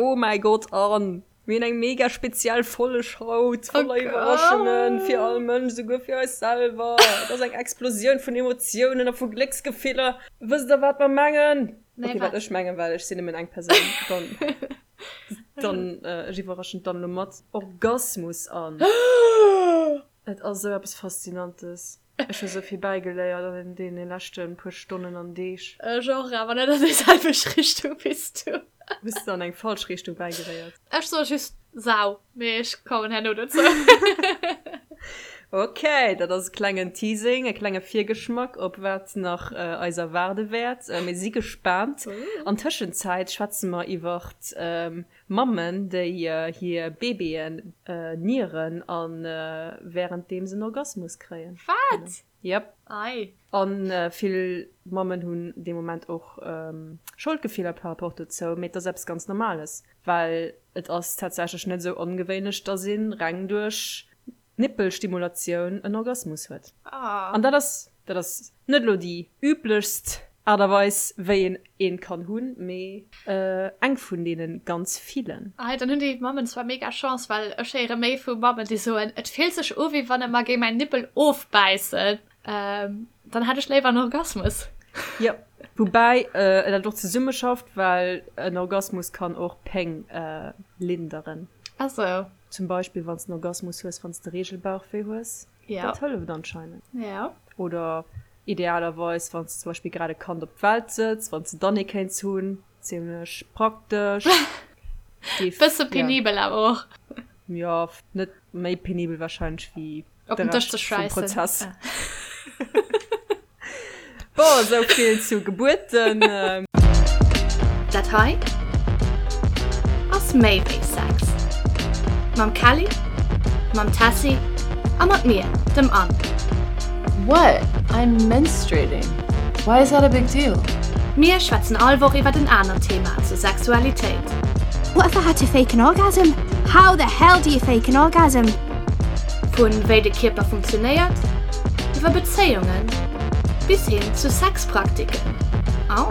Oh mäi Gott, Anne! Mir hunn eng mega speziell Folleg haut, voller Iwwerraschungen fir all Mënsch, esouguer fir eis selwer. Et ass eng Explosioun vun Emotiounen a vu Glécksgefiller. Wësst der, wat mer mengen? Nee, Okay, wat wat? ech mengen, well ech sinn nëmmen eng Persoun. Dann, dann, ech iwwerraschen d'Anne elo mat Orgasmus, Anne. Et ass esou eppes Faszinantes. Ech hu sou vill bäigeléiert an deene leschte puer Stonnen an Deeg. Ech och, awer net an déi selwecht Richtung wéi s du. Hues de an eng falsch Richtung bäigeléiert? Ech soe just Sau, mee ech kommen herno dozou. Ok, dat ass e klengen Teasing, e klenge Virgeschmack op wat nach eis erwaarde wäert. Mir si gespaant. An Tëschenzäit schwätze mer iwwert Mammen, déi hir Baby'en nieren an währenddeem se en Orgasmus kréien. Wat? Yep. Ei. An vill Mammen hunn dee Moment och Scholdgefiller par rapport dozou, mee et ass eppes ganz Normales, well et ass tatsächlech net esou ongewéinlech, dass een reng duerch Nippelstimulatioun en Orgasmus huet. An dat ass, dat ass net elo déi üblechst Aart a Weis, wéi een een kann hunn, mee eng vun deene ganz villen. Ei, dann hunn déi Mammen zwar mega Chance, well ech héiere méi vu Mammen, déi soen, et fillt sech u wéi wann e mer géing mäin Nippel ofbäissen. Dann hätt ech léiwer en Orgasmus. Jo, woubäi dat och zesummeschafft, well en Orgasmus kann och Péng linderen. Ah sou. Zum Beispill wann s de en Orgasmus hues, wann s de Regelbauchwéi hues. Ja. Dat hëlleft anscheinend. Ja. Oder idealerweis, wann s de zum Beispill grad e Kand op d'Welt sëtz, wann s de dann ee kéints hunn. Zimmlech praktesch. Géif, Bësse penibel awer och. Jo, net méi penibel warscheinlech wéi Op den Dësch ze schwäissen. Prozess. Bon, esou vill zu Gebuerten. Dat hei ass méi wéi Sex. Mam Kelly, mam Tessy a mat mir, dem Anne. What? I'm menstruating. Why is that a big deal? Mir schwätzen all Woch iwwert en anert Thema zur Sexualitéit. What if I had to fake an orgasm? How the hell do you fake an orgasm? Vun wéi de Kierper funktionéiert, iwwer Bezéiungen bis hin zu Sexpraktiken. Au!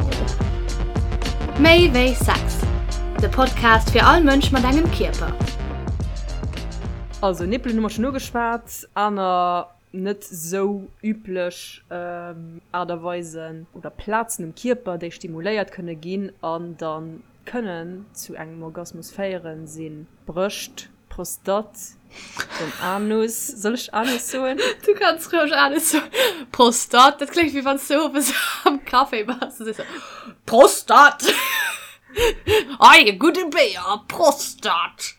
Méi wéi Sex, de Podcast fir all Mënsch mat engem Kierper. Also Nippelen hu mer schonn ugeschwat, aner net sou üblech Aart a Weisen oder Plazen um Kierper, déi stimuléiert kënne ginn an dann kënnen zu engem Orgasmus féieren, sinn d'Brëscht, d'Prostate, den Anus, soll ech Anus soen? Du kanns roueg Anus soen. Prostate, dat kléngt wéi wann s du owes am Café bass a sees Prostate! Ei, e gudde Béier, Prostate!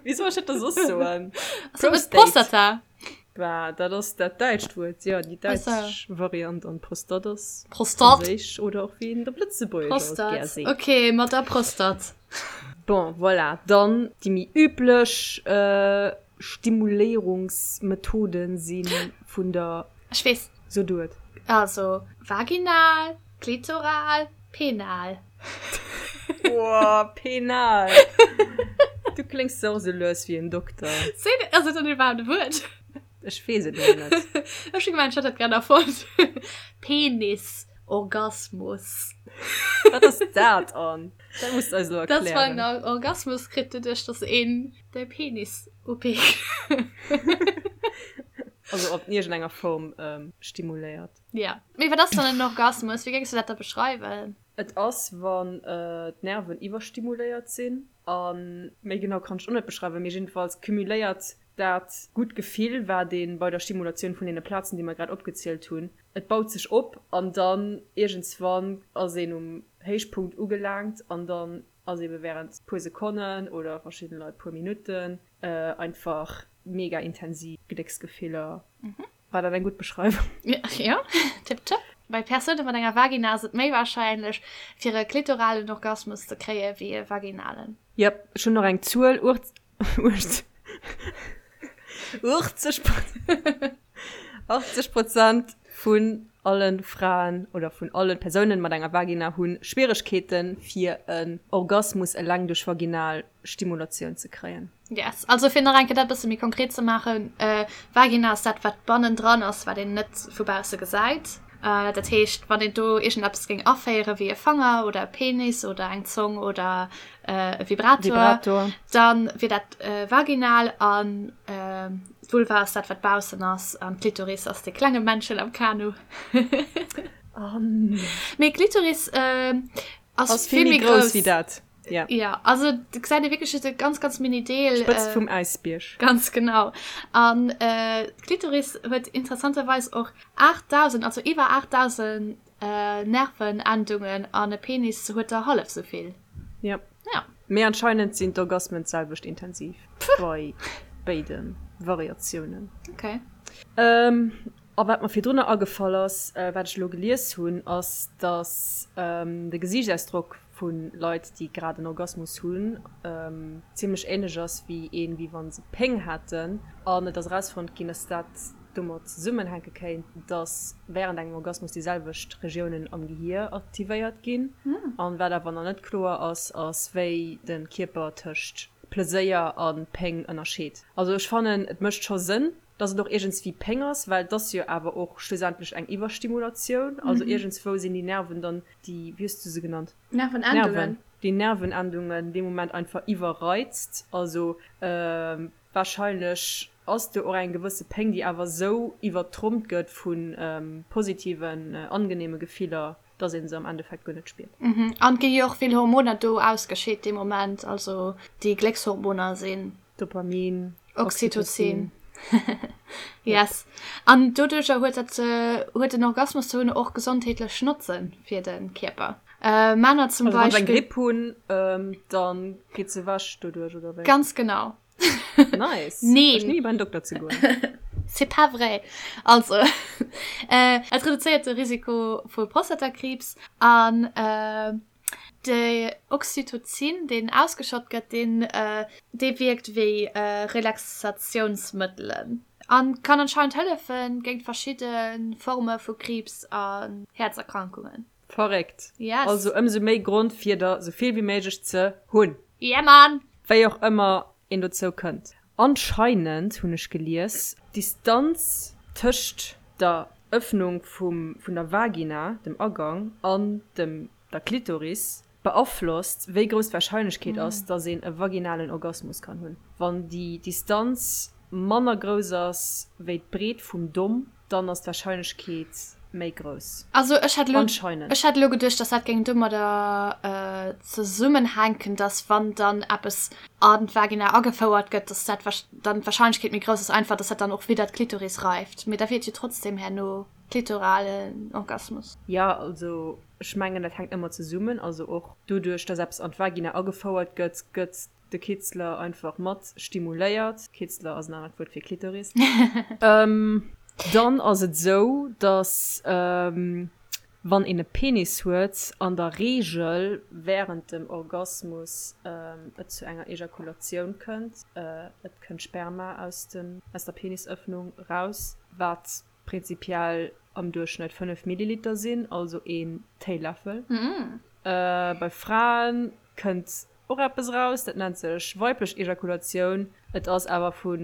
Wéi soll ech dat da soss soen? Prostata. Bah, dat ass dat däitscht Wuert, jo, déi däitsch Variant an Prostate ass Prostate. franséisch oder och wéi een et op Lëtzebuergesch alt gär Prostate, seet. ok, mat der Prostate. Bon, voilà, dann déi méi üblech Stimuléierungsmethoden si vun der. Ech weess. So du et. Also, vaginal, klitoral, penal. Boah, penal! Du kléngs och esou lues wéi en Dokter. Sinn, ass et dann iwwerhaapt e Wuert? Ech weess et elo net. Ech hu gemengt, ech hätt dat grad erfonnt. Penis, Orgasmus. Wat ass dat, Anne? Dat muss de eis elo Dat ass, wann erklären. een Orgasmus kritt, doduerch dass een de Penis upikt. Also op iergendenger Form stimuléiert. Ja. Mee wat ass dann en Orgasmus? Wéi géings du dat da beschreiwen? Et ass, wann d'Nerven iwwerstimuléiert sinn. A méi genau kann ech och net beschreiwen, mee jiddefalls cumuléiert dat gutt Gefill, wat ee bei der Stimulatioun vun deene Plazen, déi mer grad opgezielt hunn, et baut sech op an dann iergendswann ass een um Héichpunkt ugelaangt an dann ass eebe wärend puer Sekonnen oder verschidde Leit puer Minutten einfach mega intensiv Glécksgefiller. War dat eng gutt Beschreiwung? Jo, tipptopp. Bei Persoune mat enger Vagina ass et méi warscheinlech, fir e klitoralen Orgasmus ze kréie wéi e vaginalen. Jep, ech hunn nach eng Zuel, 80 Prozent vun alle Fraen oder vun alle Persounen mat enger Vagina hu Schwieregkeeten, fir en Orgasmus eleng duerch vaginal Stimulatioun ze kréien. Yes, also fir nach eng Kéier dat e bësse méi konkret ze maachen, Vagina ass dat, wat bannendran ass, wat een net vu bausse gesäit. Dat heescht, wann een do iergendeppes géing aféieren, wéi e Fanger oder e Penis oder eng Zong oder e Vibrator, dann wier dat vaginal an d'Vulva ass dat, wat baussen ass an d'Klitoris ass dee klenge Männchen am Kanu. Mee d'Klitoris ass vill méi grouss wéi dat. Ja. Ja, also du gesäit ee wierklech just e ganz, ganz mini Deel. D'Spëtzt vum Äisbierg. Ganz genau. An d'Klitoris huet interessanterweis och 8.000, also iwwer 8.000 Nervenendungen an e Penis huet der hallef sou vill. Ja. Ja. Mee anscheinend sinn d'Orgasmen d'selwecht intensiv bei béide Variatiounen. Okay. A wat mer virdrunner agefall ass, wat ech elo gelies hunn, ass, dass de Gesiichtsausdrock vu Leit, déi grad en Orgasmus hunn, zimmlech änlech ass wéi een, wéi wa se Péng hätten. An et ass erausfonnt ginn, dass dat domat zesummenhänke kéint, dass wärend engem Orgasmus déi selwecht Regiounen am Gehier aktivéiert ginn. An wat awer nach net kloer ass, ass, wéi de Kierper tëscht Pleséier a Péng ënnerscheet. Also ech fannen, et mécht scho Sënn, dass et och iergendswéi Péng ass, well et ass jo awer och schlussendlech eng Iwwerstimulatioun. Also iergendswou sinn déi Nerven dann, déi, wéi hues du se genannt? Nervenendungen. Nerven, déi Nervenendungen dee Moment einfach iwwerreizt. Also wahrscheinlech ass do och eng gewësse Péng, déi awer esou iwwertrompt gëtt vu positiven, angenehme Gefiller, dass ee se am Endeffekt guer net spiert. An et gi jo och vill Hormoner do ausgescheet dee Moment, also déi Gléckshormoner sinn. Dopamin, Oxytocin. Yes. An doduercher huet dat, huet den Orgasmus ze hunn och gesondheetlech Notze fir de Kierper. Männer zum Also wann se eng Beispill. Gripp hunn, dann geet se ewech doduerch, oder wéi? Ganz genau. Nice. Neen. Ech ni beim Dokter ze goen. C'est pas vrai. Also, et reduzéiert de Risiko vu Prostatakriibs an De Oxytocin, deen ausgeschott gëtt, deen dee wierkt wéi Relaxatiounsmëttelen a kann anscheinend hëllefe géint verschidde Forme vu Kriibs an Häerzerkrankungen. Verréckt. Yes. Also ëmsou méi Grond fir der sou vill wéi méiglech ze hunn. Yeah man! Wéi och ëmmer een dozou kënnt. Anscheinend hunn ech gelies, d'Distanz tëscht der Ëffnung vum vun der Vagina, dem Agang, an dem der Klitoris beaflosst, wéi grouss d'Warscheinlechkeet ass, dass een e vaginalen Orgasmus kann hunn. Wann déi Distanz manner grouss ass wéi d'Breet vum Domm, dann ass d'Warscheinlechkeet méi grouss. Also ech hätt elo, Anscheinend. ech hätt elo geduecht, dass dat géing domadder zesummenhänken, dass wann dann eppes an d'Vagina agefouert gëtt, dass dat dann d'Warscheinlechkeet méi grouss ass einfach, dass dat dann och widder d'Klitoris reift. Mee da wier et jo trotzdem herno klitoralen Orgasmus. Jo, also ech mengen dat hänkt ëmmer zesummen. Also och doduerch, dass eppes an d'Vagina agefouert gëtt, gëtt de Kitzler einfach mat stimuléiert. Kitzler ass en anert Wuert fir Klitoris. Dann ass et esou, dass wann een e Penis huet, an der Reegel wärend dem Orgasmus et zu enger Ejakulatioun kënnt. Et kënnt Sperma aus dem aus der Penisëffnung raus, wat prinzipiell am Duerchschnëtt 5 Milliliter sinn, also een Téiläffel. Bei Frae kënnt och eppes eraus, dat nennt sech weiblech Ejakulatioun. Et ass awer vu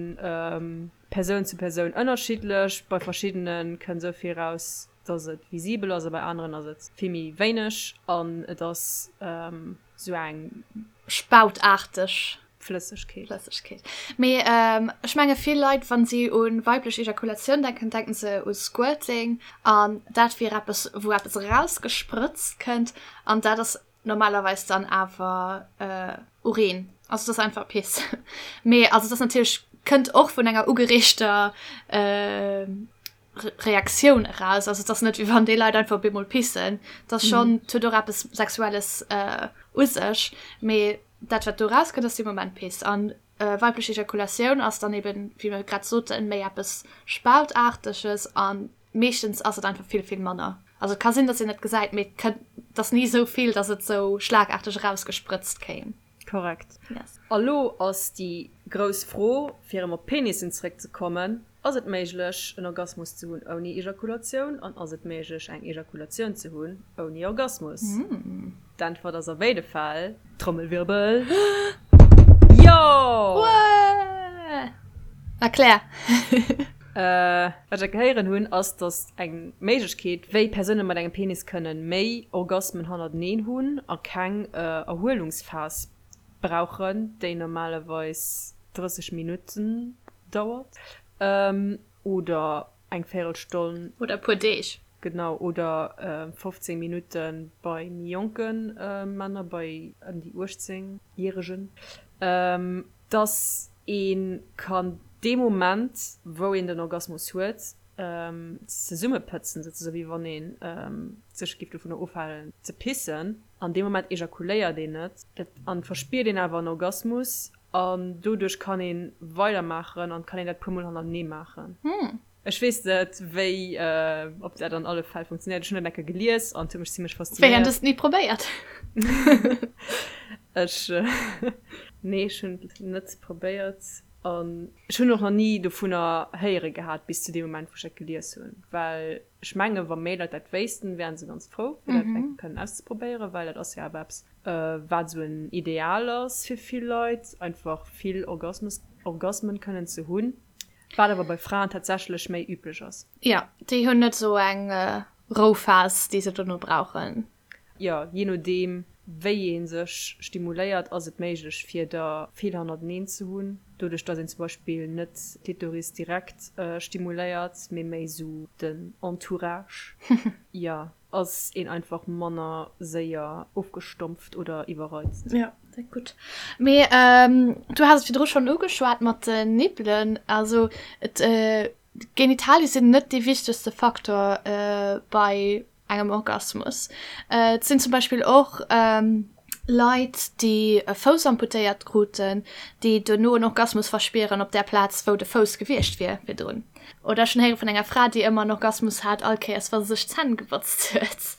Persoun zu Persoun ënnerschiddlech. Bei verschiddene kënnt esou vill eraus, dass et visibel ass a bei aneren ass et vill méi wéineg an et ass esou eng. Spautaarteg Flëssegkeet. Flëssegkeet. Mee ech menge vill Leit, wa si u weiblech Ejakulatioun denken, denken se u Squirting an dat wier eppes, wou eppes erausgesprëtzt kënnt an dat ass Normalerweis dann awer Urin. Also et ass einfach Piss. Mee also et ass natierlech, kënnt och vun enger ugereegter Reaktioun eraus. Also et ass net wéi wann déi Leit einfach op eemol pissen. Et ass schonn, et huet och eppes Sexuelles u sech. Mee dat wat do erauskënnt ass dee Moment Piss. An weiblech Ejakulatioun ass dann eben, wéi mer grad soten, méi eppes Spautaarteges an Meeschtens ass et einfach vill, vill manner. Also et ka sinn, datt een et gesäit, mee et kënnt, et ass ni esou vill, datt et esou schlagaarteg erausgesprëtzt kéim. Korrekt. Yes. A lo ass déi grouss Fro, fir erëm op d'Penissen zeréckzekommen, Ass et méiglech, en Orgasmus ze hunn ouni Ejakulatioun? An ass et méiglech, eng Ejakulatioun ze hunn ouni Orgasmus? D'Äntwert ass a béide Fäll, Trommelwirbel, Jo! Wuah! Erklär! Wat ech gehéieren hunn, ass, datt eng Méiglechkeet, wéi Persoune mat engem Penis kënnen méi Orgasmen hannerteneen hunn a keng Erhuelungsphas brauchen, déi normalerweis 30 Minutten dauert oder eng Véirelstonn. Oder e puer Deeg. Genau, oder 15 Minutte bei méi jonke Männer, bei ëm déi 18 Järegen. Dass ee kann dee Moment, wou een den Orgasmus huet, zesummepëtzen, souzesoen, wéi wann ee sech géif dovunner ofhalen ze pissen. An deem Moment ejakuléiert een net an verspiert een awer en Orgasmus an doduerch kann ee weidermaachen an kann een dat puer mol hannertenee maachen. Ech weess net wéi, ob dat an alle Fäll funktionéiert. Ech hunn dat eng Kéier gelies an et huet mech zimlech faszinéiert. Wéi, an du hues et ni probéiert? Ech, nee, ech hunn et net probéiert an ech hunn och nach ni dovunner héiere gehat bis zu deem Moment wou ech dat gelies hunn, well ech mengen wa méi Leit dat wéissten, wären se ganz frou fir dat eng Kéier kënnen auszeprobéieren, well dat ass jo awer eppes wat esou en Ideal ass fir vill Leit, einfach vill Orgasmus, Orgasmen kënnen ze hunn. Wat awer bei Fraen tatsächlech méi üblech ass. Jo, déi hunn net esou eng Rouphas, déi se dono brauchen. Jo, jee nodeem wéi ee sech stimuléiert, ass et méiglech fir der vill hannerteneen ze hunn. Doduerch dass een zum Beispill net d'Klitoris direkt stimuléiert, mee méi esou den Entourage. Jo. Ass een einfach manner séier ofgestompft oder iwwerreizt. Jo, dat gutt. Mee du has et virdru schonn ugeschwat mat den Nippelen. Also et, d'Genitalie sinn net dee wichtegste Faktor bei engem Orgasmus. Et sinn zum Beispill och Leit, déi e Fouss amputéiert kruten, déi duerno en Orgasmus verspieren op där Plaz, wou de Fouss gewiescht wier virdrun. Oder ech hunn héiere vun enger Fra, déi ëmmer en Orgasmus hat, all Kéiers, wa se sech d'Zänn gebotzt huet.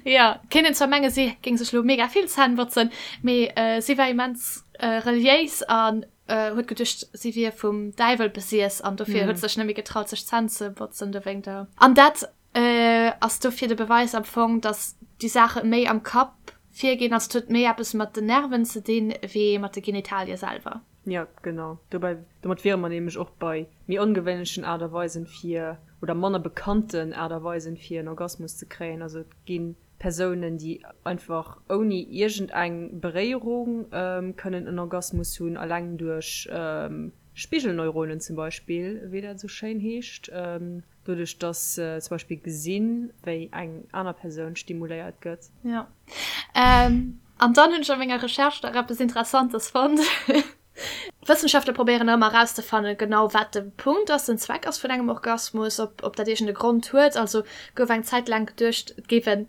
Jo, kéint een zwar mengen, si géing sech elo mega vill Zänn botzen, mee si war immens reliéis an huet geduecht, si wier vum Däiwel besiess an dofir huet se sech net méi getraut, sech d'Zänn ze botzen dowéinter. An dat Ass dofir de Beweis am Fong, dass déi Saache méi am Kapp virginn? Also et huet méi eppes mat den Nerven ze dinn, wéi mat de Genitalie selwer? Jo, genau. Dobäi, domat wiere mer nämlech och bei méi ongewéinlechen Aart a Weisen fir, oder manner bekannten Aart a Weisen fir en Orgasmus ze kréien. Also et gi Persounen, déi einfach ouni iergendeng Beréierung kënnen en Orgasmus hunn, alleng duerch Spigelneuronen zum Beispill, wéi dat esou schéin heescht. Doduerch dass se zum Beispill gesinn, wéi eng aner Persoun stimuléiert gëtt. Jo. An dann hunn ech a menger Recherche nach eppes Interessantes fonnt. Wëssenschaftler probéieren ëmmer erauszefannen, genau wat de Punkt ass, den Zweck ass vun engem Orgasmus, ob ob dat iergend e Grond huet. Also gouf eng Zäit laang geduecht, et géif en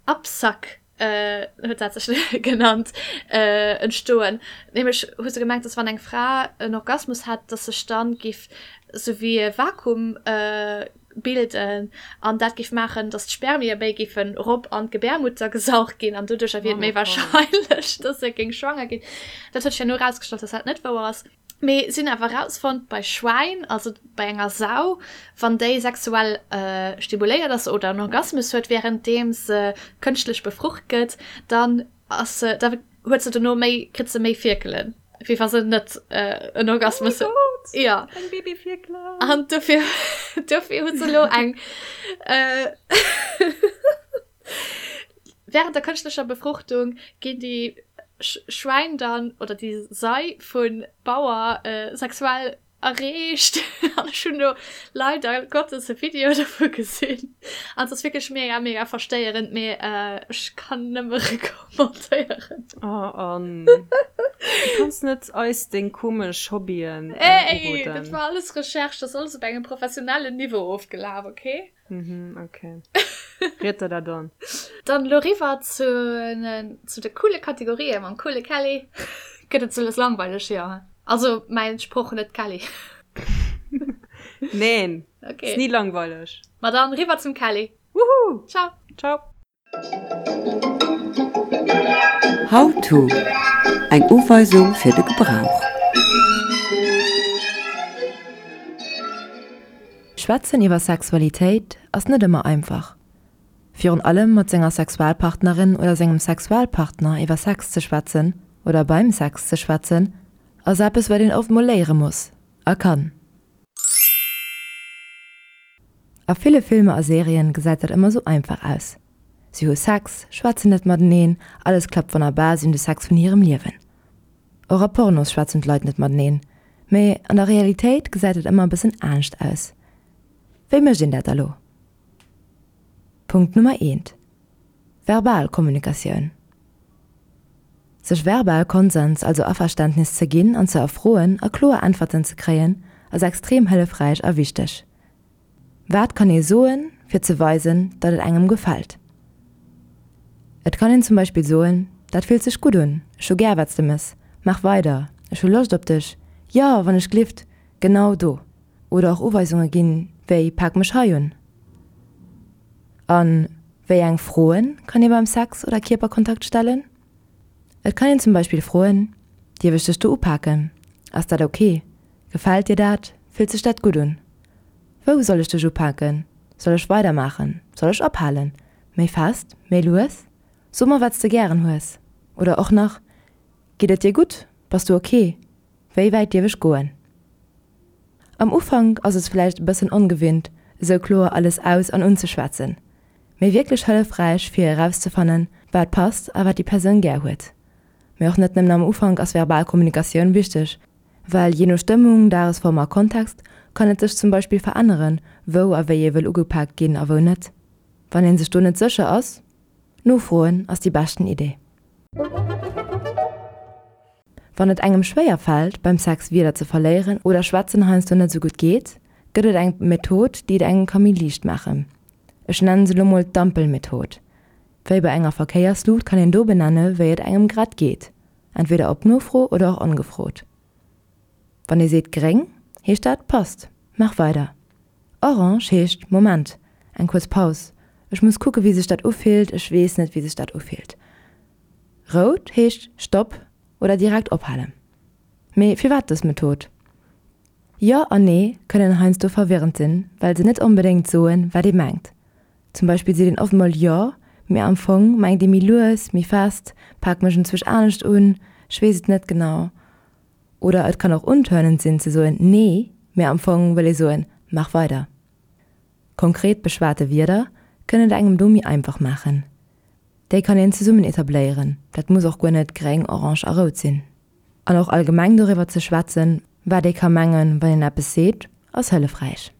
Absack huet dat sech genannt, entstoen. Nämlech hu se gemengt, dass wann eng Fra en Orgasmus hätt, dass sech dann giff sou wéi e Vakuum bilden an dat giff maachen, dass d'Spermie méi giffen erop an d'Gebärmutter gesaugt ginn an doduercher wier et méi wahrscheinlech, dass se géing schwanger ginn. Dat huet sech herno erausgestallt, dass dat net wouer ass. Mee si hunn awer erausfonnt, bei Schwäin, also bei enger Sau, wann déi sexuell stimuléiert ass oder en Orgasmus huet, wärenddeem se kënschtlech befrucht gëtt, dann ass se, da huet se dono méi, kritt se méi Fierkelen, wéi wa se net en Orgasmus huet. Oh mäi Gott! Jo. Eng Babyfierkelen! An dofir, dofir hu se elo eng. Während der kënschtlecher Befruchtung ginn déi Schwäin dann, oder déi Sei vun Bauer sexuell erreegt an ech hunn do leider Gottes e Video dovu gesinn an et ass wierklech mega mega verstéierend, mee ech kann nëmme recommandéieren. Oh Anne, du kanns net eis deng komesch Hobbyen uroden. Ey, dat war alles Recherche, dat ass alles op engem professionellen Niveau ofgelaf, okay? Mhm, okay. Riet der dat an. Dann elo riwwer zu, zu de coole Kategorien mam coole Kelly. Gëtt et sou langweileg, jo. Also mäin Sproch, net d'Kelly. Neen, okay. Ass ni langweileg. Ma dann riwwer zum Kelly. Woohoo! Ciao! Ciao! How to, Eng Uweisung fir de Gebrauch. Schwätzen iwwer Sexualitéit ass net ëmmer einfach. Virun allem mat senger Sexualpartnerin oder sengem Sexualpartner iwwer Sex ze schwätzen oder beim Sex ze schwätzen, ass eppes wat een oft mol léiere muss a kann. A ville Filmer a Serien gesäit dat ëmmer sou einfach aus. Si hu Sex, schwätzen net mateneen, alles klappt wonnerbar, si hunn de Sex vun hirem Liewen. Och a Pornos schwätzen d'Leit net mateneen. Mee an der Realitéit gesäit et ëmmer e bëssen anescht aus. Wéi mécht een dat da lo? Punkt Nummer eent, Verbal Kommunikatioun. Sech verbal Konsens, also Averständnis ze ginn an ze erfroen a kloer Äntwerten ze kréien, ass extrem hëllefräich a wichteg. Wat kann ee soen, fir ze weisen, datt et engem gefält? Et kann een zum Beispill soen, Dat fillt sech gutt un, ech hu gär wat s de mëss, maach weider, ech hu Loscht op dech, jo, wann ech glift, genau do. Oder och Uweisunge ginn, wéi Pak mech hei un. A wéi eng Froen kann ee beim Sex oder Kierperkontakt stellen? Et kann een zum Beispill froen, Dierf ech dech do upaken? Ass dat ok? Gefält dir dat? Fillt sech dat gutt un? Wou soll ech dech upaken? Soll ech weidermaachen? Soll ech ophalen? Méi fest? Méi lues? So mer wat s de gären hues. Oder och nach, Geet et dir gutt? Bass du ok? Wéi wäit dierf ech goen? Am Ufank ass et vläicht e bëssen ongewinnt, esou kloer alles aus an unzeschwätzen, mee wierklech hëllefräich fir erauszefannen, wat passt a wat déi Persoun gär huet. Mee och net nëmmen am Ufank ass verbal Kommunikatioun wichteg, Well jee no Stëmmung, Dagesform a Kontext kann et sech zum Beispill veränneren, wou a wéi ee wëll ugepaakt ginn a wou net. Wann ee sech do net sécher ass, nofroen ass déi beschten Idee. Wann et engem schwéier fält, beim Sex Wierder ze verléieren oder schwätzen heiansdo net esou gutt geet, gëtt et eng Method, déi et engem ka méi liicht maachen. Ech nennen se lo mol d'Ampelmethod. Wéi bei enger Verkéiersluucht kann een do benenne wéi et engem grad geet. Entweder op Nofro oder och ongefrot. Wann ee seet gréng, heescht dat passt, maach weider. Orange heescht Moment, eng kuerz Paus, ech muss kucke wéi sech dat ufillt, ech weess net wéi sech dat ufillt. Rout heescht Stopp oder direkt ophalen. Mee firwat dës Method? Jo an Nee kënnen heiansdo verwirrend sinn, well se net onbedéngt soen, wat ee mengt. Zum Beispill seet een oft mol jo, mee am Fong mengt ee méi lues, méi fest, pak mech enzwousch anescht un, ech weess et net genau. Oder et kann och untörnend sinn ze soen nee, mee am Fong wëll ee soen mach weider. Konkret beschwate Wierder kënnen et engem do méi einfach maachen. Déi kann een zesummen etabléieren, dat muss och guer net gréng, orange a rout sinn. An och allgemeng doriwwer ze schwätzen, wat ee ka mengen, wann een eppes seet, ass hëllefräich.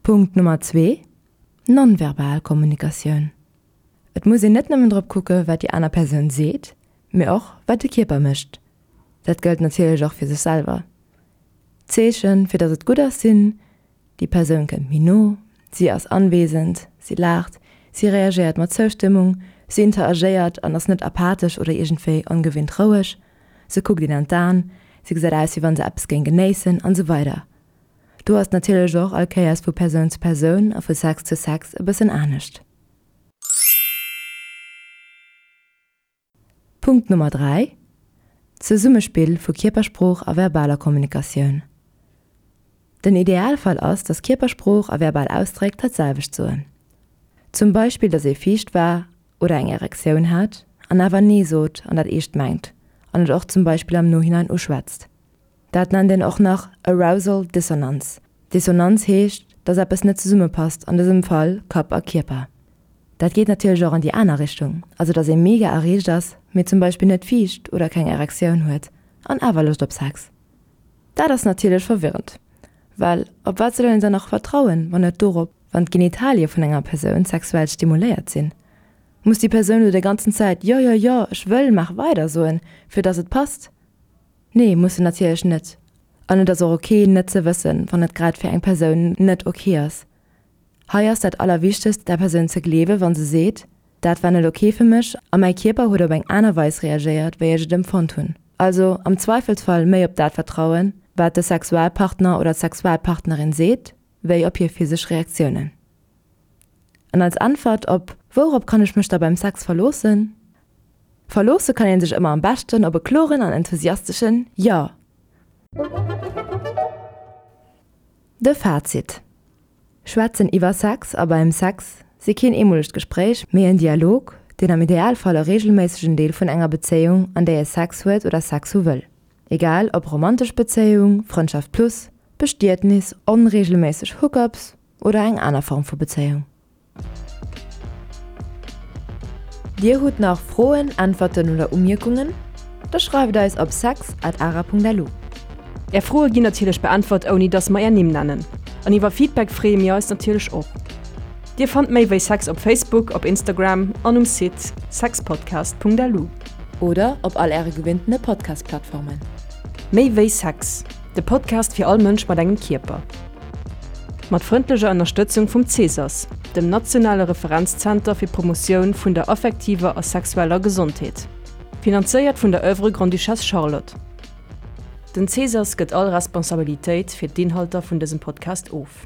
Punkt Nummer zwee, Non-verbal Kommunikatioun. Et muss een net nëmmen drop kucke wat déi aner Persoun seet, mee och wat de Kierper mécht. Dat gëllt natierlech och fir sech selwer. D'Zeechen, fir datt et gutt ass, sinn, Déi Persoun kënnt méi no, si ass anwesend, si laacht, si reagéiert mat Zoustëmmung, si interagéiert an ass net apathesch oder iergendwéi ongewinnt roueg, se kuckt een an d'Aen, se gesäit aus wéi wann se eppes géing genéissen an esou weider. Do ass natierlech och all Kéiers vu Persoun zu Persoun a vu Sex zu Sex e bëssen anescht. Punkt Nummer 3, Zesummespill vu Kierpersprooch a verbaler Kommunikatioun. Den Idealfall ass, dass Kierpersprooch a verbal Ausdréck dat selwecht soen. Zum Beispill, dass ee fiicht war oder eng Erektioun hat an awer Nee sot an dat eescht mengt an et och zum Beispill am Nohinein uschwätzt. Dat nennt een och nach Arousal Dissonanz. Dissonanz heescht, dass eppes net zesummepasst, an dësem Fall Kapp a Kierper. Dat geet natierlech och an déi aner Richtung, also dass ee mega erreegt ass, mee zum Beispill net fiicht oder keng Erektioun huet an awer Loscht op Sex. Dat ass natierlech verwirrend, well op wat soll een dann nach vertrauen, wann net dorop, wann d'Genitalie vun enger Persoun sexuell stimuléiert sinn? Muss déi Persoun elo déi ganzen Zäit jo, jo, jo, ech wëll, maach weider soen, fir dass et passt? Nee, muss se natierlech net. An et ass och ok net ze wëssen, wann et grad fir eng Persoun net ok ass. Hei ass dat allerwichtegst der Persoun ze gleewe wann se seet, dat war net ok fir mech a mäi Kierper huet op eng aner Weis reagéiert wéi ech et empfonnt hunn. Also am Zweifelsfall méi op dat vertrauen, wat de Sexualpartner oder d'Sexualpartnerin seet, wéi op hir physesch Reaktiounen. An als Äntwert op Wourop kann ech mech da beim Sex verloossen? Verloosse kann een sech ëmmer am beschten op e kloren an enthusiasteschen Jo! De Fazit, Schwätzen iwwer Sex a beim Sex si keen eemolegt Gespréich, mee en Dialog, deen am Idealfall e reegelméissegen Deel vun enger Bezéiung, an där ee Sex huet oder Sex hu wëll, egal ob romantesch Bezéiung, Frëndschaft plus. Bestietnis, onreegelméisseg Hookups oder eng aner Form vu Bezéiung. Dir hutt nach Froen, Äntwerten oder Umierkungen? Da schreift eis op sex at ara.lu. Är Froe ginn natierlech beäntwert ouni dass mer är Nimm nennen. An iwwer Feedback freeë mir eis natierlech och. Dir fannt méi wéi Sex op Facebook, op Instagram an um Site sexpodcast.lu. Oder op all äre gewinntene Podcast-Plattformen. Méi wéi Sex, de Podcast fir all Mënsch mat engem Kierper. Mat frëndlecher Ënnerstëtzung vum CSAS, dem nationale Referenzzenter fir d'Promotioun vun der affektiver a sexueller Gesondheet. Finanzéiert vun der Oeuvre Grande-Duchesse Charlotte. Den CSAS gëtt all Responsabilitéit fir d'Inhalter vun dësem Podcast of.